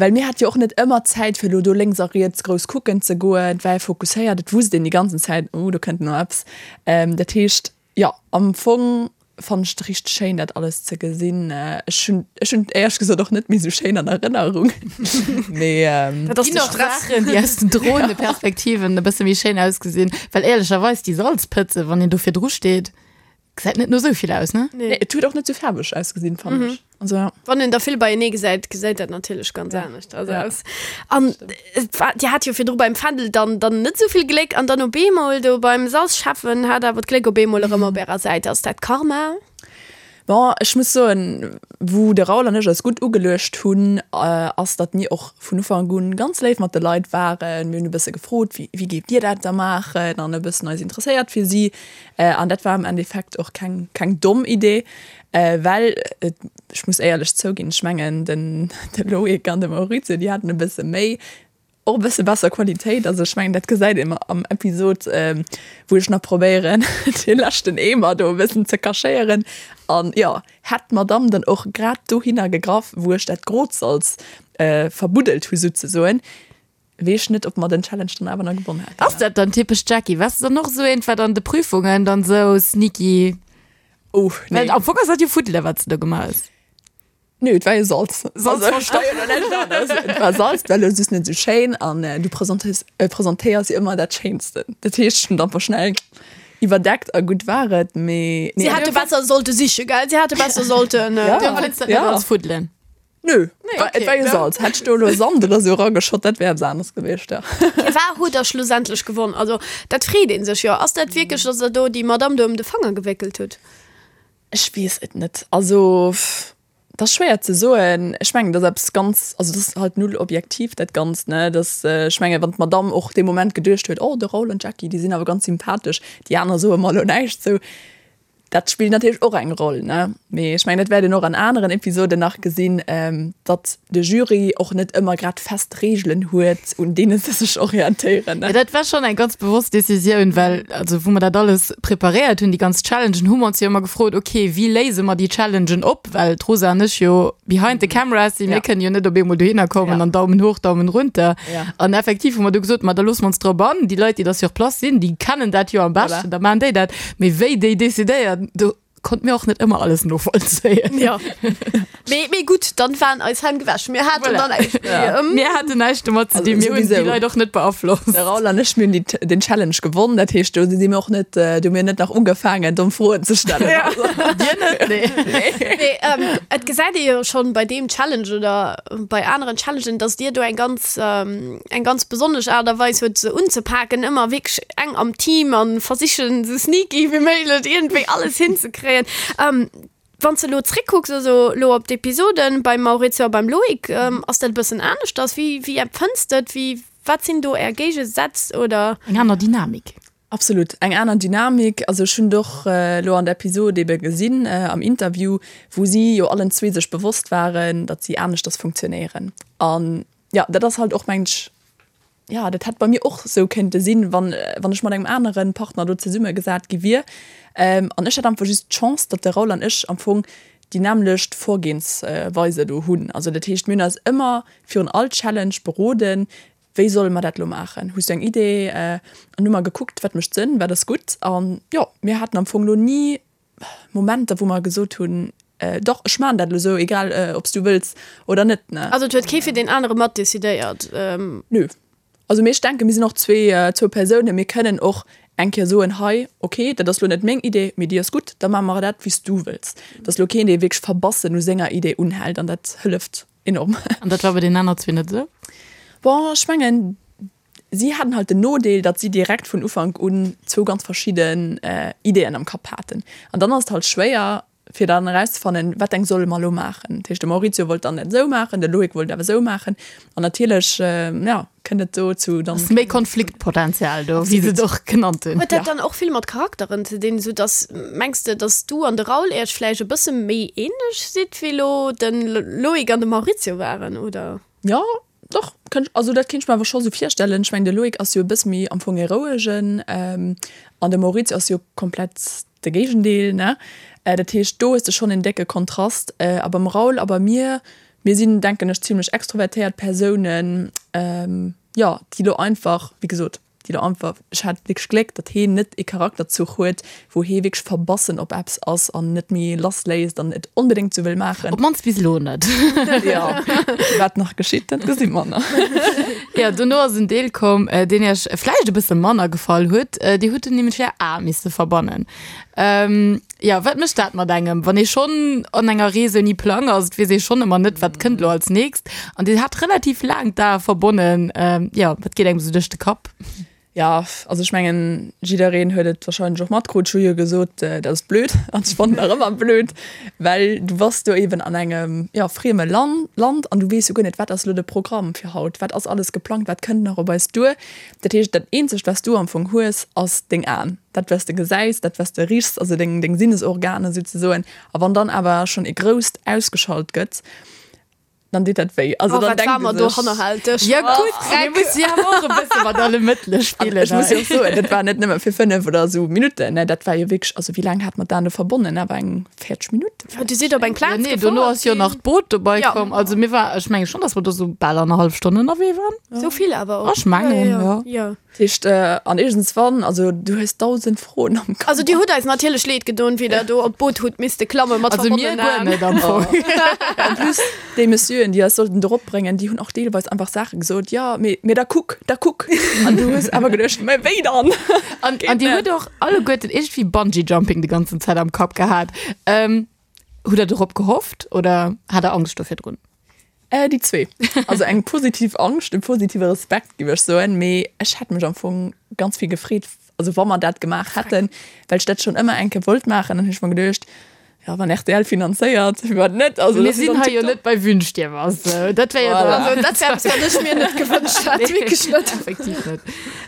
Well mir hate jo och net ëmmer Zäit, fir elo do lénks a riets grouss kucken ze goen. Et war ee fokusséiert, et wusst een déi ganzen Zäit, oh do kënnt elo eppes. Dat heescht, jo, am Fong fannen ech et richteg schéin dat alles ze gesinn. Ech hunn ech hunn et éierlech gesot och net méi sou schéin an Erënnerung, mee. Dat ass Ginn de och Stress. Saachen, déi aus den Droneperspektiven e bësse méi schéin ausgesinn, well éierlecherweis déi Salzpëtze, wann een do virdru steet, gesäit net no sou vill aus, ne? Nee, et huet och net sou faarweg ausgesinn, fannen ech. Also ja. Wann een der vill beienee gesäit, gesäit dat natierlech ganz Ja. anescht also Ja. aus. An et war, Dir hat jo virdru beim Fändel dann, dann net esou vill Gléck an dann op eemol do beim Salzschäffen hat awer d'Gléck op eemol erëm op ärer Säit. Ass dat Karma? Bon, ech muss soen, wou de Raoul an ech eis gutt ugeluecht hunn, ass, datt mir och vun Ufank un ganz léif mat de Leit waren. Mir hunn e bësse gefrot, wéi, wéi géift Dir dat da maachen an e bëssen eis interesséiert fir si. An dat war am Endeffekt och keng, keng domm Idee. Well, ech muss éierlech zouginn, ech mengen den Loïc an de Maurizio, déi haten e bësse méi, och e bësse besser Qualitéit. Also ech mengen, dat gesäit een am Episod, wou ech nach probéieren, dee leschten Eemer do e bëssen ze cachéieren. An jo, hätt d'Madamm dann och grad dohinner gegraff, wou ech dat grot Salz verbuddelt hu souzesoen, Wees net op mer den Challenge dann awer na gewonn hätten. Ass dat dann typesch Jackie? Wars de dann och esou eent wat an de Prüfungen dann esou sneaky? Oh nee. Well am Fong ass dat jo Fuddele wat s de do gemaach hues. Nö, et war jo Salz. Salz verstoppt. Et war Salz, et war elo just net esou schéin an du presentéiers presentéiers jo ëmmer dat Schéinsten. Dat heescht, ech hunn et einfach schnell iwwerdeckt a gutt war et, mee Si nee. hätte besser sollte siche, gell? Si hätte besser sollten. Ja. Du empfënns dat net Ja. als Fuddelen? Nö, okay, et war jo Salz. Hätt ech do elo Sand oder sou erageschott, dat wär eppes aneres gewiescht, ja. Firwat hutt der schlussendlech gewonn? Also dat freet ee sech jo. Ass dat wierklech, datt der do déi Madamm do ëm de Fanger gewéckelt hutt? Ech weess et net. Also dat ass schwéier ze soen. Ech mengen, dat ass eppes ganz, also dat ass halt null objektiv dat Ganzt, ne. Dat, ech mengen, wann d'Madamm och dee Moment geduecht huet, oh de Raoul an d'Jackie, déi sinn awer ganz sympathesch, déi aner soe mer elo näischt sou. Dat spillt natierlech och eng Roll, ne? Mee ech mengen, dat wäert een och an aneren Episoden nach gesinn, datt de Jury och net ëmmer grad fest Reegelen huet, un deene se sech orientéieren, ne? Jo, dat war schonn eng ganz bewosst Decisioun, well, also wou mer dat alles preparéiert hunn, déi ganz Challengen, hu mer ons jo ëmmer gefrot, okay, wéi léise mer déi Challengen op? Well d'Rosa an ech jo behind the cameras sinn, mir kënnen jo net op eemol dohinner kommen an Daumen hoch, Daumen runter. An effektiv hu mer du gesot, ma da loosse mer ons drop an, déi Leit, déi da sur place sinn, déi kennen dat jo am beschten, da maachen déi dat. Mee wéi déi decidéieren, do konnt mir och net ëmmer alles novollzéien. Ja. Mee, mee gutt, dann waren eis Hänn gewäsch. Mir haten Voilà. dann näischt méi. Ja. Ähm, Mir haten näischt domat ze dinn, mir hunn déi Leit och net beaflosst. De Raoul an ech, mir hunn déi, den Challenge gewonn. Dat heescht, do si mir och net, do hu mir net nach ugefaangen, domm Froen ze stellen. Ja. Dir net? Nee. Mee ähm, et gesäit ee jo schonn bei deem Challenge oder bei aneren Challengen, dass Dir do eng ganz, ähm, eng ganz besonnesch Aart a Weis huet se unzepaken, ëmmer wierklech eng am Team an versichen esou sneaky wéi méiglech iergendwéi alles hinzekréien. Wann s de elo zréckkucks, also elo op d'Episoden beim Maurizio a beim Loïc, ass dat e bëssen aneschters? Wéi, wéi empfënns de et? Wéi, wat sinn do är Géigesätz oder? Eng aner Dynamik. Absolut, eng aner Dynamik. Also ech hunn et och elo an der Episod ebe gesinn, am Interview, wou si jo allen zwee sech bewosst waren, datt si aneschters funktionéieren. An Jo, dat ass halt och, mengen ech, jo, dat hätt bei mir och esou kéinte sinn, wann, wann ech mat engem anere Partner do zesummegesat gi wier. An ech hat einfach just d'Chance, datt de Raoul an ech am Fong déi nämmlecht Vorgehensweise do hunn. Also dat heescht, mir hunn eis ëmmer virun all Challenge beroden, Wéi solle mer dat elo maachen? Hues du eng Idee? An hu mer gekuckt, wat mécht Sënn, wat ass gutt. An jo, mir haten am Fong elo ni Momenter, wou mer gesot hunn, Dach, ech maachen dat elo esou, egal ob s du wëlls oder net. Also et huet kee fir deen anere mat decidéiert? Nö. Also mee ech denken, mir sinn och zwee, zwou Persounen, mir kënnen och eng Kéier soen, hei, okay, dat ass elo net meng Idee, mee déi ass gutt, da maache mer dat, wéi s du wëlls. Et ass elo keen, dee wierklech verbassen u senger Idee unhält an dat hëlleft enorm. An dat war bei deenen aner zwee net esou? Bon, ech mengen, Si haten halt den Nodeel, datt si direkt vun Ufank un zwou ganz verschidden Ideeën am Kapp haten. An dann ass et halt schwéier, fir dann erauszefannen, wat eng solle mer elo maachen. Dat heescht, de Maurizio wollt dann dat esou maachen, de Loïc wollt awer esou maachen. An natierlech, jo, kënnt et do zu dann. Ass méi Konfliktpotenzial do, wéi se et och genannt hunn. Huet dat dann och vill mat Charakteren ze dinn, sou datt, mengs de, datt du an de Raoul Iech vläicht e bësse méi ähnlech sidd, wéi elo de Loïc an de Maurizio waren, oder? Jo, Doch, Kënnt, also dat kéint ech mer awer scho sou virstellen. Ech mengen de Loïc ass jo e bësse méi am Fong e rouegen an de Maurizio ass jo komplett de Géigendeel, ne? Dat heescht do hues de schonn en décke Kontrast. A beim Raoul a bei mir, mir sinn denken ech zimlech extrovertéiert Persounen, jo, déi lo einfach, wéi gesot, déi do einfach, ech hat wierklech Gléck, datt heen net ee Charakterzuch huet, wou hee wierklech verbassen op eppes ass an net méi lass léisst an et onbedéngt sou wëll maachen. Op d'mannst bis elo net. Jo, wat nach geschitt, dat gesi mer nach. Jo, dono ass en Deel komm, deen iech vläicht e bësse manner gefall huet. Dir hutt en nämlech är Ae misse verbannen. Jo, wat mécht dat mat engem, wann ee schonn an enger Rees ouni Plang ass? Et weess ee schonn ëmmer net, wat kënnt elo als nächst. An Dir hat relativ laang d'Ae verbonnen. Jo, wat geet engem esou duerch de Kapp? Jo, also ech mengen, jiddereen huet et warscheinlech och matkrutt. Ech hu jo gesot, dat ass blöd an ech fannen nach ëmmer blöd, well du bass do eeben an engem, jo, frieme Land an du weess jo guer net, wat ass elo de Programm fir haut, wat ass alles geplangt, wat kënnt nach op eis duer. Dat heescht, dat eenzegt, wat s du am Fong hues, ass deng Aen. Dat wat s de gesäis, dat wat s de richs, also deng deng Sinnesorganer souzesoen. A wann dann awer schonn e grousst ausgeschalt gëtt, dann deet dat wéi. Also Oh, dann wat denkt war ee mer do sech, hannerhälteg. Ja gutt, mir musse jo awer och e bësse mat alle Mëttele An spillen ech muss jo hei. och soen, dat war net nëmme fir 5 oder esou Minutten, ne, dat war jo wierklech, also wéi laang hat mer d'Aen do verbonnen? Awer eng 40 Minutten Ja, du sidd op eng Ja, Plaz nee, dono gefuer ass jo ginn. nach d'Boot dobei Ja. komm. Also mir war, ech menge schonn, datt mer do sou bal annerhallef Stonn ënnerwee waren. Sou vill awer och. Ech mengen, ja. Ja. Dat heescht, an iergendswann, also du hues 1.000 Froen am Kapp. Also dir hutt eis natierlech leed gedon, wéi der do op d'Boot hutt misste klamme mat Also mir verbonnenen guer Aen. net am Fong. En plus, déi Messieuren, déi eis sollten dorop bréngen, déi hunn och deelweis einfach Saache gesot, jo, mee, mee da kuck, da kuck. An du hues awer geduecht, mä wéi dann? An, an dir hutt och alleguerten iergendwéi Bungee Jumping déi ganzen Zäit am Kapp gehat. Hutt der dorop gehofft oder hat der Angscht do virdrun? Äh, déi zwee. Also eng positiv Angscht, e positive Respekt, géif ech soen. Mee ech hätt mech am Fong ganz vill gefreet, also wa mer dat gemaach hätten, well ech dat schonn ëmmer eng Kéier wollt maachen. Dann hunn ech mer geduecht, jo, wann rtl finanzéiert, firwat net? Also Mir dat ass sinn dann hei jo tiptop. net bei Wünsch dir was. Dat wär jo Voilà. dann. Also dat wär eppes, wat ech mir net gewënscht hätt, wierklech net. Effektiv net.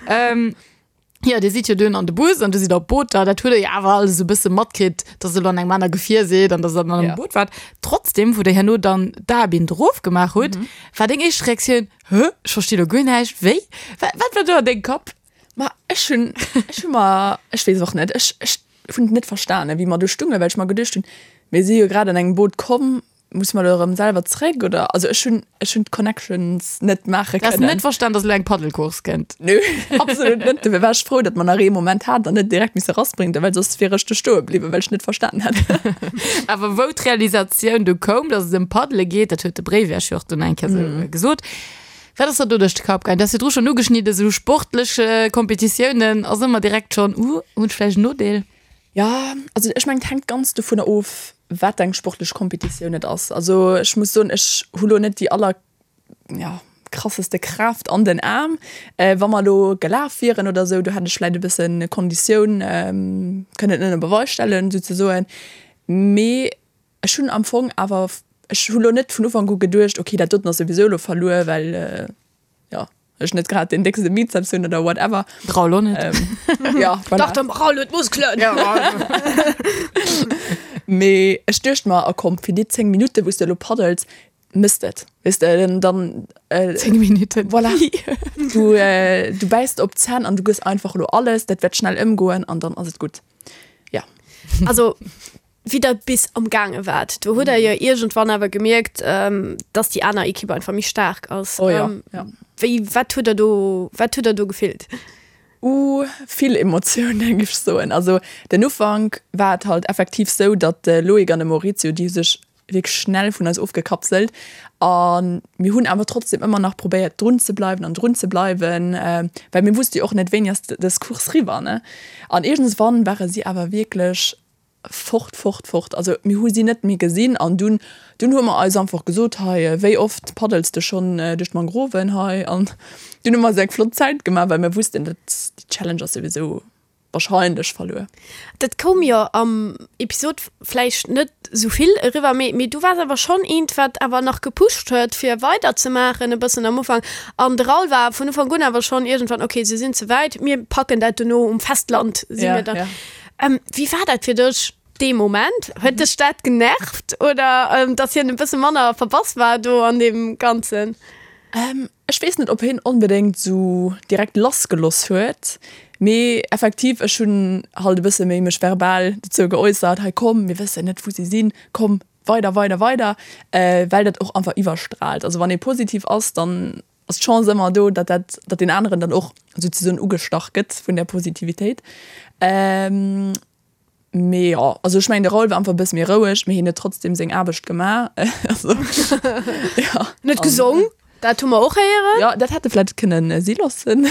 Ähm, Jo, dir sidd jo dunn an de Bus an du sidd op Booter. Dat hutt der jo awer alles esou e bësse matkritt, dass der elo an engem aner Gefier sidd an dass der an engem Ja. Boot waart. Trotzdem, wou der herno dann d'Aerbinn erof gemaach hutt, war deng éischt Reaktioun, Hä, ech versti lo guer näischt, wéi? Wat, wat war do an dengem Kapp? Ma ech hunn, ech hu mer, ech weess och net, ech, ech hunn et net verstanen, wéi mer do stungen, well ech mer geduecht hunn, mir si jo grad an engem Boot komm, Muss mer elo erëm selwer zréck oder? Also ech hunn ech hunn d'Connections net maache Du has kënnen. net verstan, dass elo eng Paddelcourse kënnt? Nö, absolut net. Dofir war ech frou, datt mer nach ee Moment haten an net direkt misse rasprinten, well soss wier ech do stoe bliwwen, well ech net verstanen hätt. Awer wou d'Realisatioun du koum, dass et ëm Paddele geet, dat huet de Bréif Iech jo och dunn eng Kéier esou gesot, wat ass der do duerch de Kapp gaangen? Du has virdru schonn ugeschnidden, esou sportlech Kompetitiounen ass ëmmer direkt schonn, uh, hunn ech vläicht en Nodeel? Jo, also ech mengen et hänkt ganz dovunner of, wat eng sportlech Kompetitioun et ass. Also ech muss soen, ech hu lo net déi aller, ja, krasseste Kraaft an den Aarm. Wa mer elo gelaf wieren oder esou, do hätt ech vläit e bëssen Konditioun kënnen ënner Beweis stellen souzesoen. Mee ech hunn am Fong awer, ech hu lo net vun Ufank u geduecht, okay dat doten ass souwisou elo verluer, well jo, ech net grad den déckste Bizeps hunn oder whatever. Raoul och net. Ähm, ja, voilà. Dach, dem Raoul huet Muskelen. Ja, Mee ech duecht mer, a komm, fir déi 10 Minutte wou s de elo paddels, mëss et. Weess de, dann, dann äh, 10 Minutten. Voilà. Du, äh, du bäiss op d'Zänn an du gëss einfach elo alles, dat wäert schnell ëmgoen an dann ass et gutt. Ja. Also wéi der bis am gaange waart, do hutt der jo iergendwann awer gemierkt, dass déi aner Ekipp einfach méi staark ass. Oh jo, ja. Wéi, wat hutt der do, wat hutt der do gefillt? Uh, vill Emotiounen, géif ech soen. Also den Ufank war et halt effektiv sou, datt de Loïc an de Maurizio, déi hu sech wierklech schnell vun eis ofgekapselt a mir hunn awer trotzdem ëmmer nach probéiert drun ze bleiwen an drun ze bleiwen, well mir wusste jo och net, wéini ass dës Course riwwer, ne. An iergendswann ware si awer wierklech Fort, fort, fort. Also mir hu si net méi gesinn an dunn, dunn hu mer eis einfach gesot, hei, wéi oft paddels de schonn duerch d'Mangroven hei? An dunn hu mer eis eng flott Zäit gemaach, well mir wussten, dat, déi Challenge ass souwisou wahrscheinlech verluer. Dat koum jo am Episod vläicht net esou vill eriwwer, mee, mee du waars awer schonn eent, wat awer nach gepusht huet, fir weiderzemaachen e bëssen am Ufank. An de Raoul war vun Ufank un awer schonn iergendwann, okay, se sinn ze wäit, mir packen dat dono um Festland, si mir dann. Wéi war dat fir dech dee Moment? Huet dech dat genervt oder dass hien e bësse manner verbass war do an deem Ganzen? Ech weess net, ob hien onbedéngt esou direkt lassgeloss huet, mee effektiv, ech hunn halt e bësse méi mech verbal dozou geäussert, hei komm, mir wëssen net, wou si sinn, komm, weider, weider, weider, well dat och einfach iwwerstraalt. Also wann ee positiv ass, dann ass d'Chance ëmmer do, datt dat, datt deen aneren dann och souzesoen ugestach gëtt vun där Positivitéit. Mee jo, also ech mengen de Raoul war einfach e bësse méi roueg, mee hien huet trotzdem seng Aarbecht gemaach. Also jo. En huet gesong, dat hu mer och héieren. Jo, dat hätt e vläicht kënnen si loossen.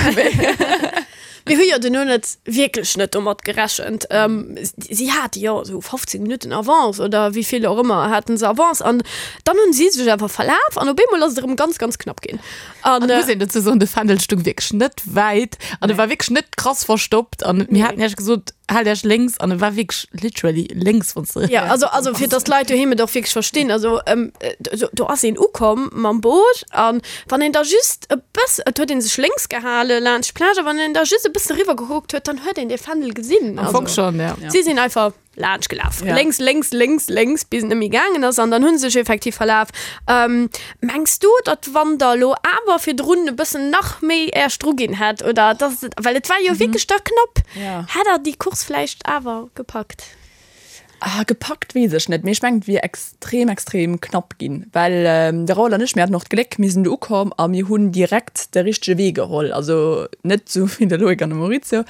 Mir hu jo duerno net wierklech net domat gerechent. Si hate jo esou 15 Minutten Avance oder wéi vill och ëmmer haten se Avance an dann hunn si sech awer verlaf an op eemol ass et erëm ganz, ganz knapp ginn. An et muss een dozou soen, de Fändel stung wierklech net wäit an e war wierklech net krass verstoppt an mir haten iech gesot, haalt iech lénks an e war wierklech literally lénks, wann s de. Ja, also, also fir dass d'Leit doheem et och wierklech verstinn, also do, do ass een ukomm mam Boot an wann een da just e bëss, et huet ee sech lénks gehale laanscht d'Plage a wann een da just e bëssen eriwwer gekuckt huet, dann huet een dee Fändel gesinn. Am Fong schonn, ja. Si sinn einfach. laanscht gelaf. Ja. Lénks, lénks, lénks, lénks, bis et net méi gaangen ass an dann hu se sech effektiv verlaf. Ähm, mengs du, datt wann der elo awer virdrun e bëssen nach méi Äerch dru ginn hätt oder datt et, well et war jo wierklech da knapp, Ja. hätt der déi Course vläicht awer gepackt? Ah, gepackt weess ech net, mee ech mengen, et wier extrem, extrem knapp ginn, well de Raoul an ech, mir haten och d'Gléck, mir sinn do ukomm a mir hunn direkt de richtege Wee geholl, also net esou wéi de Loïc an de Maurizio,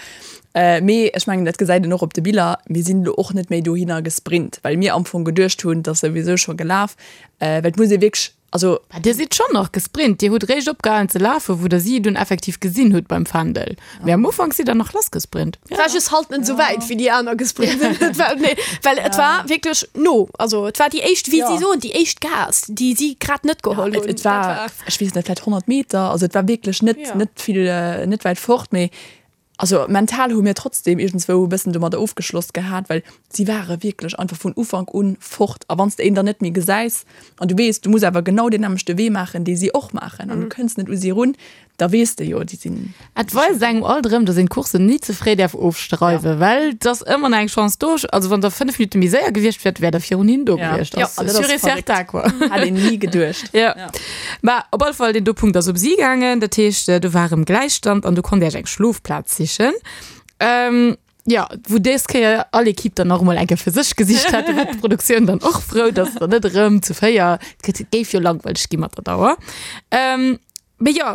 Mee ech mengen, dat gesäit een och op de Biller, mir sinn elo och net méi dohinner gesprint, well mir am Fong geduecht hunn, et ass souwisou scho gelaf. Well et muss ee wierklech, also. Mä Dir sidd schonn nach gesprint. Dir hutt réischt opgehalen ze lafen, wou Der si dunn effektiv gesinn hutt beim Fändel. Mee am Ufank sidd Der nach lassgesprint. Et war just halt net esou wäit, wéi déi aner gesprint sinn. Et war, nee, well et war wierklech no. Also et war déi éischt, wéi si soen, déi éischt Gaass, déi si grad net geholl hunn. Et war, ech weess net, vläicht 100 Meter. Also et war wierklech net, net vill, net wäit fort. Mee Also mental hu mir trotzdem iergendswou e bëssen domadder ofgeschloss gehat, well si ware wierklech einfach vun Ufank un fort. A wann s de een dann net méi gesäis an du weess, du muss awer genau deen nämmlechte Wee maachen, dee si och maachen an du kënns net u si erun, da weess de jo, déi sinn. Et weist engem alt erëm, dass een d'Coursen ni ze fréi däerf ofschreiwen, well et ass ëmmer nach eng Chance do. Also wann der 5 Minutte méi séier gewiescht wäert, wäert der virun hinnen do gewiescht. Ja, Ass sûr et certain, quoi. Hätt een ni geduecht. Jo. Mä op alle Fall, deen do Punkt ass op si gaangen. Dat heescht, do war erëm Gläichstand an du konnt Iech eng Schlofplaz sichen. Jo, wou dës Kéier all Ekipp dann nach emol eng Kéier fir sech gesicht hat. Do war d'Produktioun dann och frou, dass der net erëm zu 4, et géif jo langweileg gi mat der Dauer. Mee jo,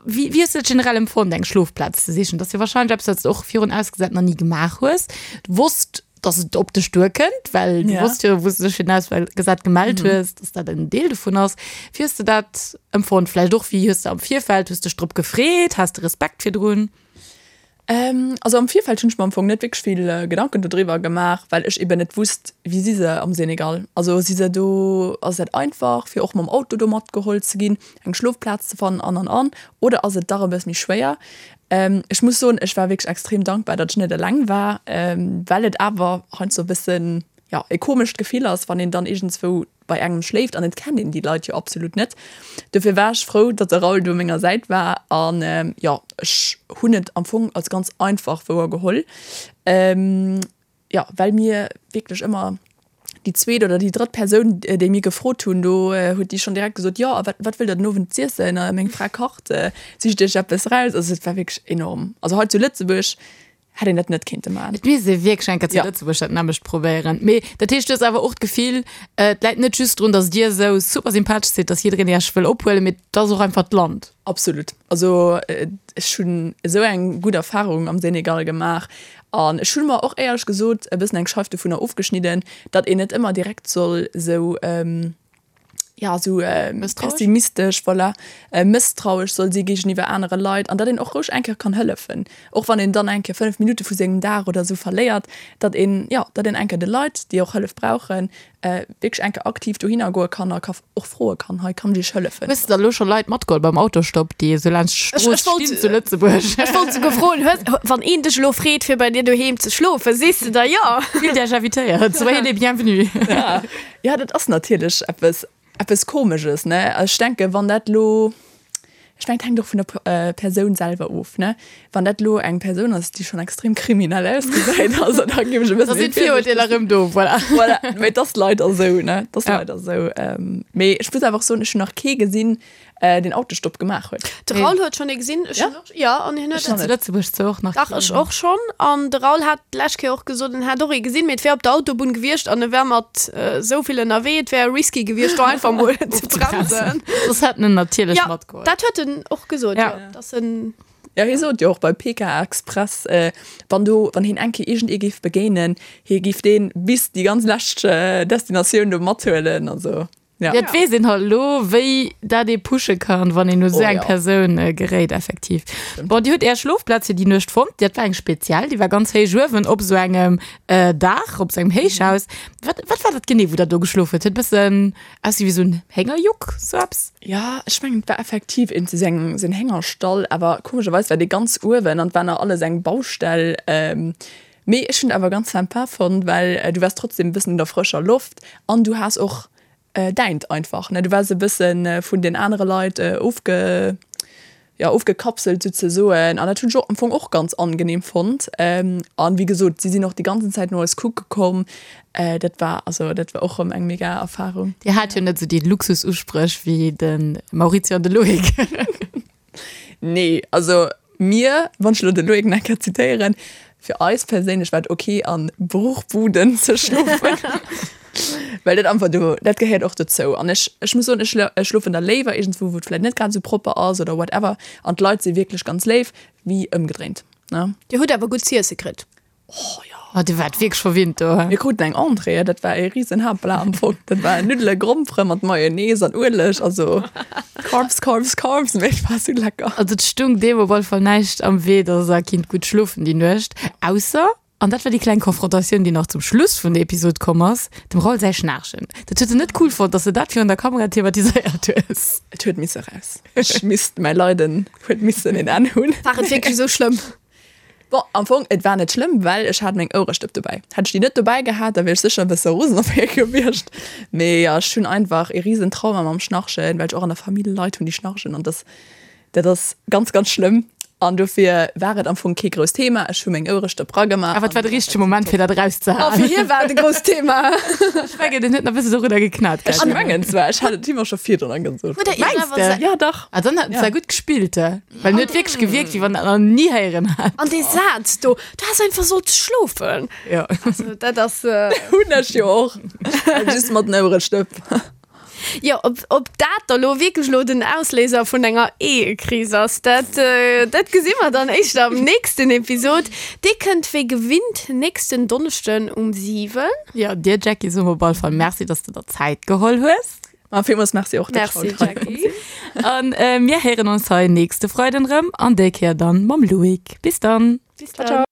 wéi wéi hues de dat generell empfonnt, eng Schlofplaz ze sichen? Dat ass jo warscheinlech eppes, wat s de och virun ausgesat nach ni gemaach hues. Du wosst, dass et op dech duerkënnt, well du Ja. wosst jo, wou s de dech fir den Auswahlgesat gemellt hues, dass dat en Deel dovun ass. Wéi hues de dat empfonnt? Vläicht och, wéi hues de am Virfeld, hues dech drop gefreet? Has de Respekt virdrun? Ähm, also am Virfeld hunn ech mer am Fong net wierklech vill Gedanken dodriwwer gemaach, well ech eben net wusst, wéi si se am Senegal. Also si se do, ass dat einfach fir och mam Auto do matgeholl ze ginn, eng Schlofplaz ze fannen an an an, oder ass et dach e bësse méi schwéier? Ech muss soen, ech war wierklech extrem dankbar, datt ech net eleng war, well et awer heiansdo e bëssen, jo, e komescht Gefill ass, wann een dann iergendzwou bei engem schléift an et kennt een déi Leit jo absolut net. Dofir war ech frou, datt de Raoul do u menger Säit war an, jo, ech hunn et am Fong als ganz einfach wouergeholl. Jo, well mir wierklech ëmmer déi zweet oder déi drëtt Persoun, déi mir gefrot hunn, do huet déi schonn direkt gesot, jo, a wat, wat wëllt der den Owend z'iessen? Meng Fra kacht, sicht iech eppes eraus. Also et war wierklech enorm. Also hei zu Lëtzebuerg hätt een dat net kéinte maachen. Et misst ee wierklech eng Kéier zu Ja. Lëtzebuerg dat nämmlecht probéieren. Mee dat heescht, du hues awer och d'Gefill, et läit net just drun, datt dir esou super sympathesch sidd, datt jiddereen iech wëll ophuelen, mee et ass och einfach d'Land. Absolut. Also ech hunn esou eng gutt Erfarung am Senegal gemaach an ech hunn mer och éierlech gesot e bëssen eng Scheif dovunner ofgeschnidden, datt een net ëmmer direkt soll esou, ja, esou pessimistesch, voilà, mësstrauesch soll si géigeniwwer anere Leit an datt een och roueg eng Kéier kann hëllefen, och wann een dann eng Kéier 5 Minutte vu sengem Dag oder esou verléiert, datt een, jo, datt een eng Kéier de Leit, déi och Hëllef brauchen, wierklech eng Kéier aktiv dohinner goe kann a ka och froe kann, hei kann ech iech hëllefen. Hues de da lo scho Leit matgeholl beim Autostopp, déi esou laanscht d'Strooss stinn zu Lëtzebuerg? Ech wollt souguer froen, hues, wann een dech elo freet fir bei dir doheem ze schlofen, sees de da jo? Fillt iech invitéiert, soyez les bienvenus. Jo, dat ass natierlech eppes, eppes Komesches, ne? Ech denken, wann dat elo, Ech mengen, et hänkt och vun der Persoun selwer of, ne? Wann dat elo eng Persoun ass, déi schonn extrem kriminell ausgesäit, also da géif ech e bësse Da sinn d'Virurteeler erëm do, voilà. Voilà, mee et ass leider esou, ne? Et ass leider esou. Mee ech muss awer och soen, ech hunn nach kee gesinn. deen Autostopp gemaach huet. De Raoul huet schonn ee gesinn, ech hunn och, jo, an hien huet. Ech hunn zu Lëtzebuerg zwar och nach Dach, ech och schonn. An de Raoul hat d'lescht Kéier och gesot, en hätt och ee gesinn, mee et wär op der Autobunn gewiescht an e wär mat esou vill ënnerwee, et wär risky gewiescht, do einfach mol ze bremsen. Soss hätt en en natierlech matgeholl. Jo, dat huet en och gesot, jo, dass en. Jo, hie sot jo och bei PK Express, wann do, wann hien eng Kéier iergend ee géif begéinen, hie géif dee bis déi ganz lescht Destinatioun do mathuelen. Also. Ja. Et weess een halt elo, wéi dat ee pushe kann, wann een u sou eng Persoun geréit, effektiv. Bon, Dir hutt Är Schlofplaz fir déi Nuecht fonnt. Dat war eng speziell, déi war ganz héich uewen op sou engem Daach, op sou engem Héichhaus. Wat, wat war dat genee, wou Der do geschlof hutt? Huet e bëssen ausgesi wéi sou en Héngerjuck, sou eppes? Ja, ech mengen, et war effektiv een sou eng, sou en Héngerstall, awer komescherweis war dee ganz uewen an et war nach alles eng Baustell. Mee ech hunn et awer ganz sympa fonnt, well du waars trotzdem e bëssen un der frëscher Loft an du has och däint einfach, ne? Du waars e bësse vun den anere Leit ofge, jo, ofgekapselt souzesoen an dat hunn ech och am Fong och ganz angenehm fonnt. An wéi gesot, si sinn och déi ganzen Zäit no eis kucke komm. Dat war, also dat war och erëm eng mega Erfarung. Dir hat jo net esou déi Luxususpréch wéi de Maurizio an de Loïc. Nee, also mir, wann ech elo de Loïc nach eng Kéier zitéieren, fir eis perséinlech war et ok an Bruchbuden ze schlofen, well dat einfach do, dat gehéiert och dozou. An ech, ech muss soen, ech ech schlofen da léiwer iergendswou, wou et vläicht net grad esou propper ass oder whatever an d'Leit si wierklech ganz léif, wéi ëmgedréint, ne. Dir hutt awer gutt z'iesse kritt. Oh jo. Oh, dir waart wierklech verwinnt do, he? Mir kruten eng Entrée, dat war ee risen Haaptplat am Fong. Dat war Nuddele, Grompere mat Mayonnaise an Ueleg, also Carbs, Carbs, Carbs, mee et war sou lecker. Also et stung deem op alle Fall näischt am Wee, dass der kinnt gutt schlofen déi Nuecht, ausser, an dat war déi kleng Konfrontatioun, déi nach zum Schluss vun der Episod komm ass, dem Raoul säi Schnaarchen. Dat huet en net cool fonnt, dass de dat virun der Kamera thematiséiert hues. Et huet misse raus. Ech misst, mäi Leiden huet missen een Enn hunn. War et wierklech esou schlëmm? Bon, am Fong, et war net schlëmm, well ech hat meng Ouerestëpp dobäi. Hätt ech déi net dobäi gehat, da wier ech sécher e bësse rosen op hie gewiescht. Mee jo, ech hunn einfach ee risen Trauma mam Schnarchen, well ech och an der Famill Leit hunn, déi schnarchen an dass, dat ass ganz, ganz schlëmm. An dofir war et am Fong kee grousst Thema. Ech hu meng Ouerestëpp ragemaach. Awer et war de richtege Moment, fir dat Oh, erauszehaen. fir hie war et e grousst Thema. Ech mengen, en huet nach e bësse dorunner geknat, Ech mengen zwar, ech hat et him och scho virdrun gesot. Huet der Iech Mengs awer de? se Ja, dach. Ah, dann hat en zwar gutt gespillt, he. Well en huet wierklech gewierkt, wéi wann en dat nach ni héieren hätt. An dee Saz do, du häss einfach sollt schlofen. Jo. Also dat ass. Hunn ech jo och. Just mat den Ouerestëpp. Jo, ob, ob dat da lo wierklech lo den Ausléiser vun enger Ehekris ass, dat, dat gesi mer dann éischter am nächsten Episod. Dee kënnt wéi gewinnt nächsten Donneschden um 7. Jo, dir Jackie soe mer op alle Fall Merci, dass de der Zäit geholl hues. Ma villmools Merci och, dass ech haut hei konnt sinn. An mir héieren ons hei nächste Freiden erëm an déi Kéier dann mam Loïc. Bis dann! Bis dann!